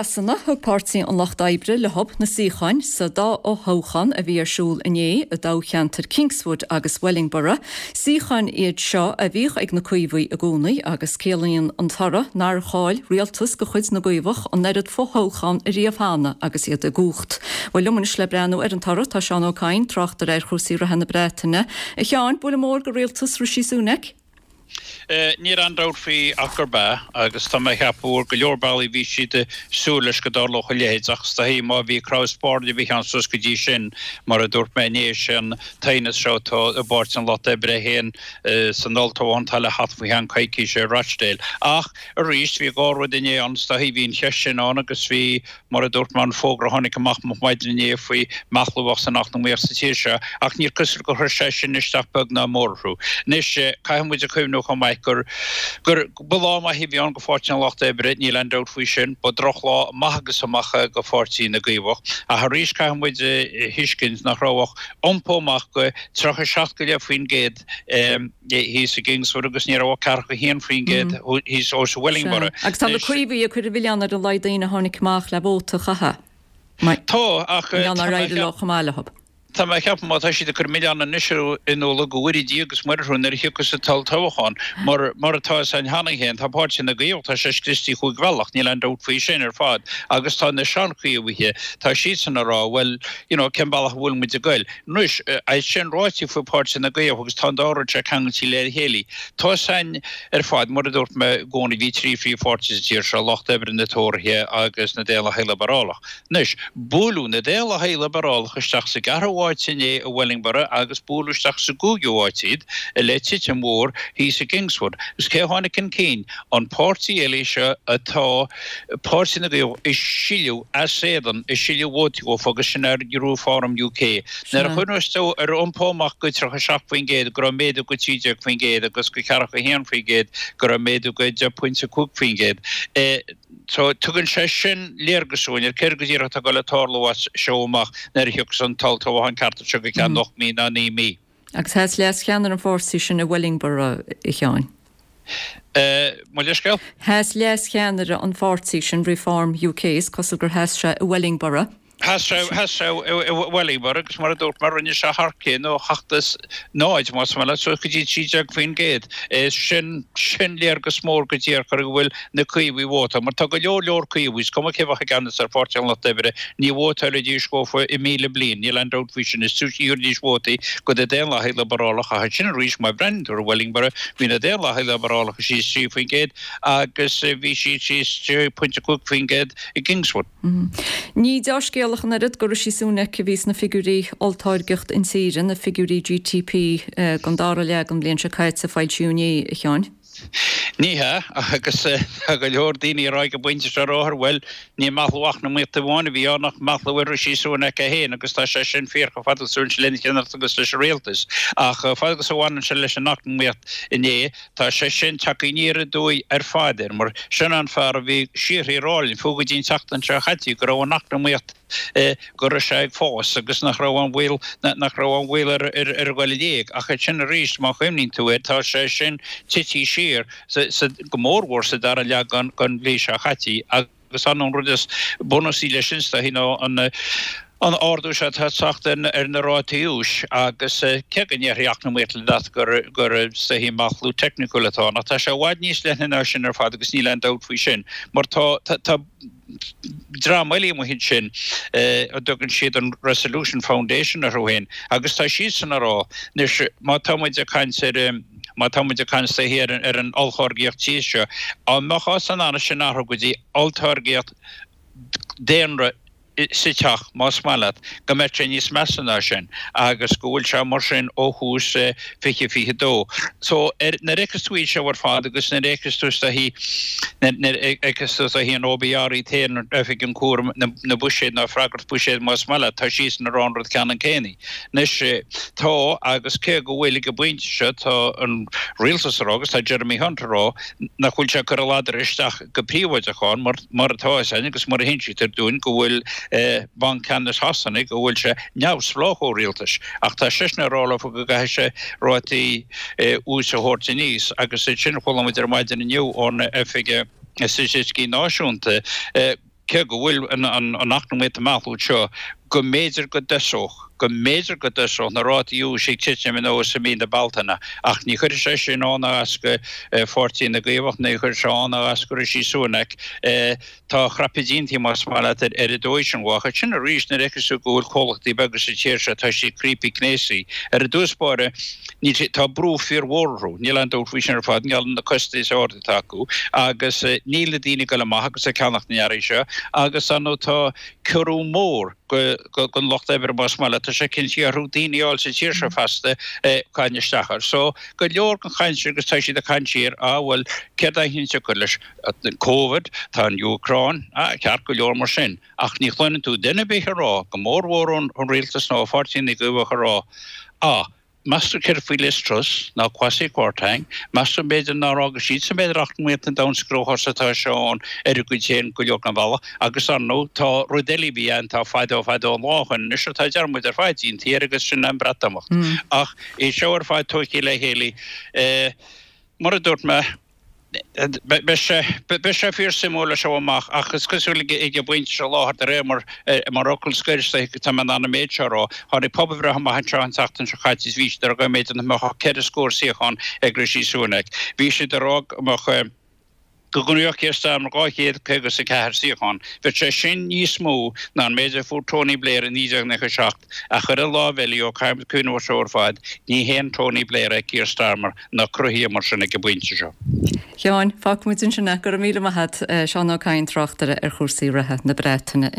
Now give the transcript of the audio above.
Sasana, thug Páirtí an Lucht Oibre leo na suíocháin sa dá fhothoghchán a bhí ar siúl inné i dtoghcheantair Kingswood agus Wellingborough. Suíocháin iad seo a bhíodh ag na Caomhaigh i gcónaí agus ciallaíonn an toradh nár chaill rialtas de chuid na gCaomhach an oiread fothoghchán ariamh cheana agus iad i gcumhacht. Bhuel, liom anois le breathnú ar an toradh tá Seán Ó Cadhain, tráchtaire ar chúrsaí reatha na Breataine. A Sheáin, buille mór do rialtas Rishi Sunak. Níl aon dabht faoi ach gurb ea, agus tá mé a cheapadh ar go leor bealaí bhí siad ag súil leis go dtarlódh a leithéid ach is dóichí má bhí cnámh spairne a bhí ann suas go dtí sin, mar a dúirt mé inné, sé an t-aighneas seo atá i bPáirtí an Lucht Oibre féin san olltoghchán atá le theacht faoi cheann coicíse i Rochdale. Ach arís bhí dhá rud inné ann, is dóichí bhí an cheist sin ann agus bhí Mar a dúirt mé, an fógra a tháinig amach moch maidin inné faoi mheathlú a bheadh san eacnamaíocht sa tír seo, ach níor cosúil gur chuir sé sin isteach beag ná mór orthu. Anois, caithfidh muid a chuimhniú chomh maith gur gur ba lá maith a bhí ann go Pháirtí an Lucht Oibre, níl aon dabht faoi sin. Ba drochlá amach agus amach é go Pháirtí na gCaomhach. Ach arís caithfidh muid a thuiscint nach raibh ach iompó amach go 37 go leith%. Thíos i gKingswood agus ní raibh ach 41% thíos i Wellingborough. Agus tá na Caomhaigh ag cur an mhilleáin ar an laghad daoine a tháinig amach le vóta a chaitheamh. Tá, ach tá mé ag leo chomh maith leo. Tá mé ag ceapadh má tá siad ag cur milleán anois orthu go bhfóire Dia agus Muire orthu nuair a thiocfas an t-olltoghchán. Mar mar atá fhios againn cheana féin, tá Páirtí na gCaomhach, tá sé scriosta chúig bhealach, níl aon dabht faoi sin ar fad. Agus tá na seanchaomhaithe, tá siadsan ag rá, bhuel, you know, cén bealach a bhfuil muid ag goil? Anois, é sin ráite faoi Páirtí na gCaomhach, agus tá an dá rud seo ceangailte le chéile, tá fhios againn ar fad, mar a dúirt mé i gcónaí, bhí trí phríomhpháirtí sa tír seo, Lucht Oibre, na Tóraithe agus na Daonlathaigh Liobrálach. Anois, buaileadh na Daonlathaigh Liobrálach isteach sa gceathrú háit inné i Wellingborough agus buaileadh isteach sa gcúigiú háit iad le titim mhór thíos i gKingswood. Agus cé a tháinig chun cinn? An páirtí eile seo atá Páirtí na gCaomhach ag sileadh as éadan, ag sileadh vótaí dhófa agus sin ar Reform UK. Nuair a chuimhneos tú ar iompó amach go 37% go raibh méadú go 13% agus go 41% go raibh méadú go 10.5%. So tugann sé sin léargas dúinn ar céard go díreach atá ag dul a tarlú as seo amach nuair a thiocfas an t-olltoghchán ceart anseo go ceann 8 mí ná 9 mí. Agus sheas leas-cheannaire an pháirtí sin i Wellingborough, a Sheáin. Mo leithscéal? Sheas leas-cheannaire an pháirtí sin, Reform UK, is cosúil gur sheas sé i Wellingborough. Sheas sé, sheas sé i Wellingborough agus mar a dúirt mé, rinne sé thar cionn ó sheacht is náid, más maith leat, suas go dtí 13%. Sin, sin léargas mór go díreach ar go bhfuil na Caomhaigh ag vótáil, mar tá go leor leor Caomhaigh, is cuma cé bheadh i gceannas ar Pháirtí an Lucht Oibre, ní vótálfaidís dhófa i míle bliain, níl aon dabht faoi sin, is túisce a thabharfaidís vótaí go na Daonlathaigh Liobarálacha, ach ansin arís, má bhreathnaíonn tú ar Wellingborough, bhí na Daonlathaigh Liobarálacha síos 3% agus bhí siad síos 6.5% i gKingswood. Ní deá-scéal ach an oiread do Rishi Sunak a bhí sna figiúirí olltáirgeacht intíre, na figiúirí GDP don dara leath den bhliain seo caite a foilsíodh inné, a Sheáin. Ní hea, agus tá go leor daoine ag rá ag an bpointe seo ar bhuel, ní meathlú eacnamaíochta amháin a bhí ann ach meathlú ar Rishi Sunak é féin agus tá sé sin fíor chomh fada agus a bhaineann sé lena cheannaireacht agus leis an rialtas. Ach chomh fada agus a bhaineann sé leis an eacnamaíocht inné, tá sé sin tagtha aniar aduaidh ar fad air mar sin an fear a bhí síoraí ag rá linn, fiú go dtí an tseachtain seo chaite, go raibh an eacnamaíocht go raibh sé ag fás agus nach raibh aon bhaol, nach raibh aon bhaol ar a dhul i léig. Ach ansin arís, má chuimhníonn tú air, tá sé sin tite siar, go mórmhór sa dara leath den bhliain seo chaite. Agus an rud is bunúsaí leis sin, is dóichí, ná an an ardú seo atá ag teacht ar na rátaí úis agus cé go ndéarfaidh eacnamaíocht leat gur gur is dóichí meathlú teicniúil atá ann, ach tá sé i bhfad níos leithne ná sin ar fad agus níl aon dabht faoi sin mar tá tá dream eile amuigh ansin a dtugann siad an Resolution Foundation orthu féin agus tá siadsan ag rá anois má tá muid ag caint ar má tá muid ag caint is dóichí ar ar an olltáirgeacht tíre seo, dá mbeifeá in ann sin a athrú go dtí olltáirgeacht daonra sa teach, más maith leat, go mbeadh sé níos measa ná sin agus go bhfuil sé mar sin ó thús 2022. So ar, nuair a fheiceas tú iad seo ar fad agus nuair a fheiceas tú is dóichí, nuair a fheiceas tú is dóichí an OBR iad féin, Oifig an Chúraim na Buiséad nó Freagracht Buiséid más maith leat, tá siadsan ag rá an rud ceannann céanna. Anois, tá, agus cé go bhfuil ag an bpointe seo, tá an rialtas ag rá agus tá Jeremy Hunt ag rá nach bhfuil sé ag cur a ladar isteach go príobháideach ann mar, mar atá fhios againn agus mar a hinsítear dúinn go bhfuil Banc Ceannais Shasana, go bhfuil sé neamhspleách ó rialtais. Ach tá seisean ag rá leofa go gcaithfidh sé rátaí úis a thabhairt aníos agus ansin chuala muid ar maidin inniu ón Oifig Staitisticí Náisiúnta. Cé go bhfuil an eacnamaíocht ag meathlú seo, go mb'fhéidir go dtosódh, go mb'fhéidir go dtosódh na rátaí úis ag titim anuas i mí na Bealtaine, ach ní chuirfidh sé sin ann ná as go Pháirtí na gCaomhach, ní chuirfidh sé ann ná as go Rishi Sunak. Tá crapadh déanta, más maith leat, ar an dóigh sin. Ach ansin arís, nuair a fheiceas tú go bhfuil comhlachtaí beaga sa tír seo, tá siad criopaí cnéasaí. Ar dtús báire, níl sé, tá brú fíormhór orthu, níl aon dabht faoi sin ar fad, i ngeall ar na costais arda atá acu agus níl na daoine ag dul amach agus ag ceannacht na n-earraí seo agus ar ndóigh tá ciorrú mór don lucht oibre más maith leat, tá sé cinntithe orthu daoine a fháil sa tír seo feasta caint isteach air. So go leor den chaint sin agus tá siad ag caint siar, ah bhuel céard é an siocair leis Covid, tá an Úcráin, ah ceart go leor mar sin ach ní chluineann tú duine ar bith ag rá, go mórmhór ón rialtas nó ó Pháirtí na gCaomhach ag rá, ah Meas tú céard faoi Liz Truss nó Kwasi Kwarteng? Meas tú b'fhéidir nár fhága siadsan b'fhéidir eacnamaíocht an domhain sa gcruachás atá sé ann ar a gcuid féin go leor den bhealach? Agus ar ndóigh tá rud eile a bhí ann tá fadó fadó an lá ó shoin anois atá dearmad ar fad déanta air agus sin an Breatimeacht. Ach é seo ar fad tógtha le chéile mar a dúirt mé, Beidh sé, beidh sé fíor suimiúil as seo amach ach is cosúil ag an bpointe seo i láthair de réir mar, mar fhocal scoir is dóiche tá mé in ann an méid seo a rá, tháinig pobalbhreith amach anseo an tseachtain seo caite is bhí siad ag rá go mb'fhéidir nach mbeadh ach ceithre scór suíochán ag Rishi Sunak. Bhí siad ag rá go mbeadh, go ngnóthódh Keir Starmer 254 suíochán. Bheadh sé sin níos mó ná an méid a fuair Tony Blair i 1997. Ach ar an lámh eile, ó caithfimid cuimhneamh air seo ar fad, ní haon Tony Blair é Keir Starmer ná cruthaithe mar sin ag an bpointe seo. A Sheáin, fágfaimid ansin é. Go raibh míle maith agat, Seán Ó Cadhain, tráchtaire ar chúrsaí reatha na Breataine.